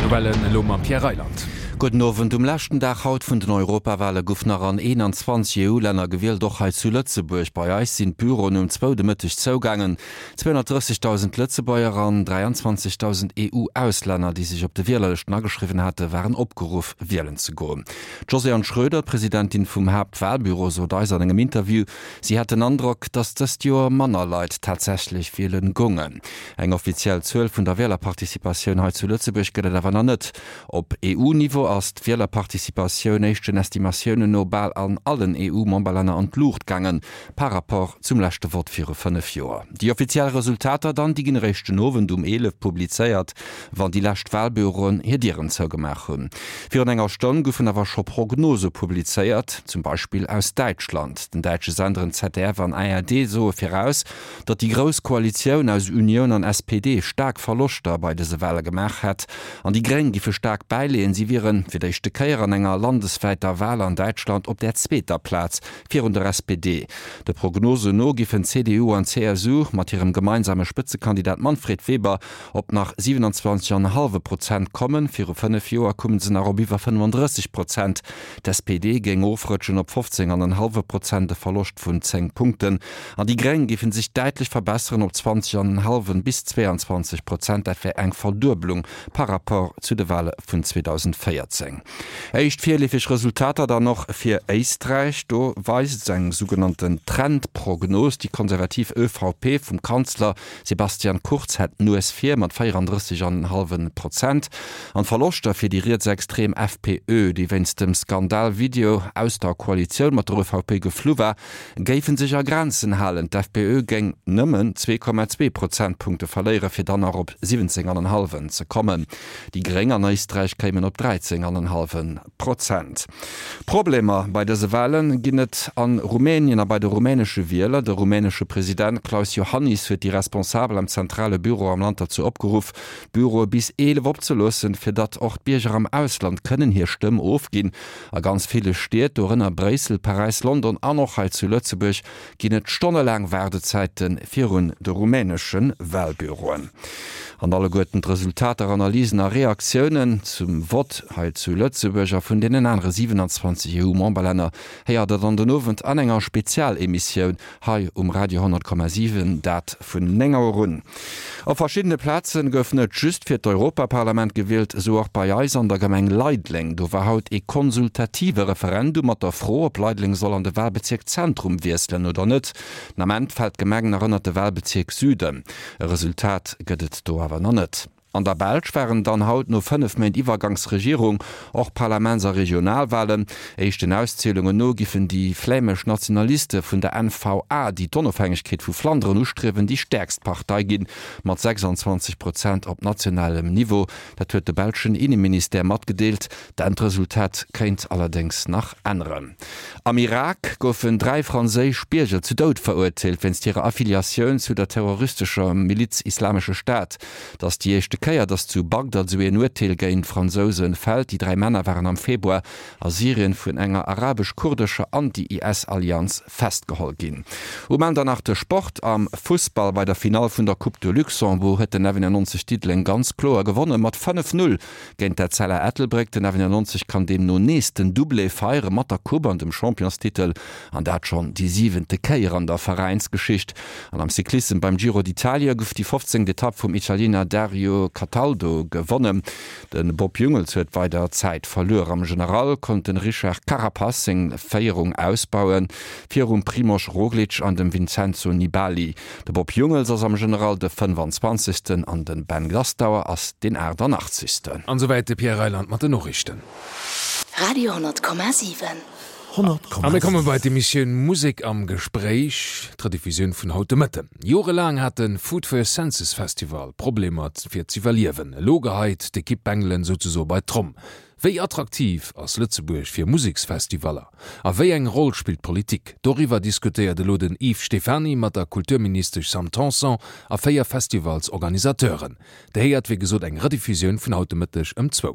D'Nouvellen elo mam Pierre Reyland. Gudden Owend. Um leschten Dag haut vun den Europawale guff nach an 21 EU-Länner gewielt, och hei zu Lëtzebuerg. Bei eis sinn d'Büroen um zwou de Mëtteg zougaangen. 230.000 Lëtzebuerger an 23.000 EU-Auslänner, déi sech op de Wielerlëschten ageschriwwen hate, waren opgeruff, wielen ze goen. D'Josée-Anne Schroeder, d'Presidentin vum Haaptwalbüro, sot eis an engem Interview, si hätt den Androck, datt dëst Joer manner Leit tatsächlech wielen goungen. Eng offiziell Zuel vun der Wielerparticipatioun hei zu Lëtzebuerg gëtt et awer nach net. Op EU-Niveau ass d'Wielerparticipatioun éischten Estimatiounen no bal an allen EU-Memberlänner an d'Luucht gaangen, par rapport zum leschte Vott viru 5 Joer. Déi offiziell Resultater dann, déi ginn eréischt den Owend um 11 publizéiert, wann déi lescht Walbüroen hir Dieren zougemaach hunn. Virun enger Stonn goufen awer scho Prognose publizéiert, zum Beispill aus Däitschland. Den däitsche Senderen ZDF an ARD soe viraus, datt déi grouss Koalitioun aus Unioun an SPD staark Verloschter bei dëse Wale gemaach hätt an déi Gréng giffe staark bäileeën. Si wiere fir d'éischte Kéier an enger landeswäiter Wal an Däitschland op där zweeter Plaz virun der SPD. De Prognosen no giffen CDU an CSU mat hirem gemeinsame Spëtzekandidat Manfred Weber op nach 27 an e hallwe Prozent kommen. Viru 5 Joer koume se nach op iwwer 35 Prozent. D'SPD géing ofrëtschen op 15 an en hallwe Prozent, e Verloscht vun 10 Punkten. An déi Gréng géife sech däitlech verbesseren op 20 an en hallwen bis 22 Prozent. Dat wär eng Verdueblung par rapport zu de Wale vun 2014. Éischt virleefeg Resultater dann och fir Éisträich. Do weist eng sougenannten Trendprognos, déi konservativ ÖVP vum Kanzler Sebastian Kurz hätt d'Nues vir mat 34 an en hallwe Prozent. An d'Verloschter fir déi rietsextrem FPÖ, déi wéinst dem Skandal-Video aus der Koalitioun mat der ÖVP geflu war, géife sech a Grenzen halen. D'FPÖ géing nëmmen 2,2 Prozentpunkte verléieren, fir dann nach op 17 an en hallwen ze kommen. Déi Gréng an Éisträich kéimen op 13 an en hallwe Prozent. Problemer bei dëse Wale ginn et a Rumänien a bei de rumänesche Wieler. De rumänesche President Klaus Iohannis huet déi Responsabel am zentrale Büro am Land derzou opgeruff, d'Büroe bis 11 opzeloossen, fir datt och d'Bierger am Ausland kënnen hir Stëmm ofginn. A ganz ville Stied, dorënner Bréissel, Paräis, London an och hei zu Lëtzebuerg, ginn et stonnelaang Waardezäite virun de rumänesche Walbüroen. An alleguerten d'Resultater, Analysen a Reaktiounen zum Vott hei zu Lëtzebuerg a vun deenen anere 27 EU-Memberlänner héiert der dann den Owend an enger Spezialemissioun hei um Radio 100,7, dat vun 9 Auer un. Op verschiddene Plaze gouf net just fir d'Europaparlament gewielt, esou och bei eis an der Gemeng Leideleng. Do war haut ee konsultative Referendum mat der Fro, ob Leideleng soll an de Walbezierk Zentrum wiesselen oder net. Den Ament fält d'Gemeng nach ënnert de Walbezierk Süden. E Resultat gëtt et do awer nach net. An der Belsch waren dann haut no 5 Méint Iwwergangsregierung och Parlaments a Regionalwalen. Éischten Auszielungen no giffen déi flämesch Nationaliste vun der NVA, déi d'Onofhängegkeet vu Flanderen ustriewen, déi stäerkst Partei ginn, mat 26 Prozent op nationalem Niveau. Dat huet de belschen Inneministère matgedeelt. D'Endresultat kéint allerdéngs nach änneren. Am Irak goufen 3 franséisch Bierger zu Doud verurteelt wéinst hirer Affiliatioun zu der terroristescher Miliz Islamesche Staat. Et ass déi éischte Kéier, datt zu Bagdad esou een Urteel géint Fransouse fält. Déi 3 Männer waren am Februar a Syrien vun enger arabesch-kurdescher Anti-IS-Allianz festgeholl ginn. Um Enn dann nach de Sport am Fussball. Bei der Finall vun der Coupe de Luxembourg huet den 99 Diddeleng ganz kloer gewonne mat 5, 0 géint d'Etzella Ettelbréck. Den 99 kann deemno nees den Doublé feiere mat der Coupe an dem Championstitel an dat schonn déi siwente Kéier an der Veräinsgeschicht. An am Cyclissem beim Giro d'Italia gouf déi 15. Etapp vum Italiener Dario Cataldo gewonnen. De Bob Jungels huet weider Zäit verluer. Am General konnt de Richard Carapaz seng Féierung ausbauen, virum Primož Roglič an dem Vincenzo Nibali. De Bob Jungels ass am General de 25. An de Ben Gastauer ass deen 88. An esouwäit de Pierre Reyland mat den Noriichten. Radio 10,7. A mir komme bei d'Emissioun Musek am Gespréich, d'Rediffusioun vun haut de Mëtten. Jorelaang hat de Food for Your Senses Festival Problemer fir z'iwwerliewen. Elo geheit d'Ekipp Bengelen souzesoe bei d'Tromm. Wéi attraktiv ass Lëtzebuerg fir Museksfestivaller? A wéi eng Roll spillt d'Politik? Doriwwer diskutéiert elo den Yves Stephany mat der Kulturministesch Sam Tanson a 4 Festivalsorganisateuren. Dir héiert wéi gesot eng Rediffusioun vun haut de Mëtteg ëm zwou.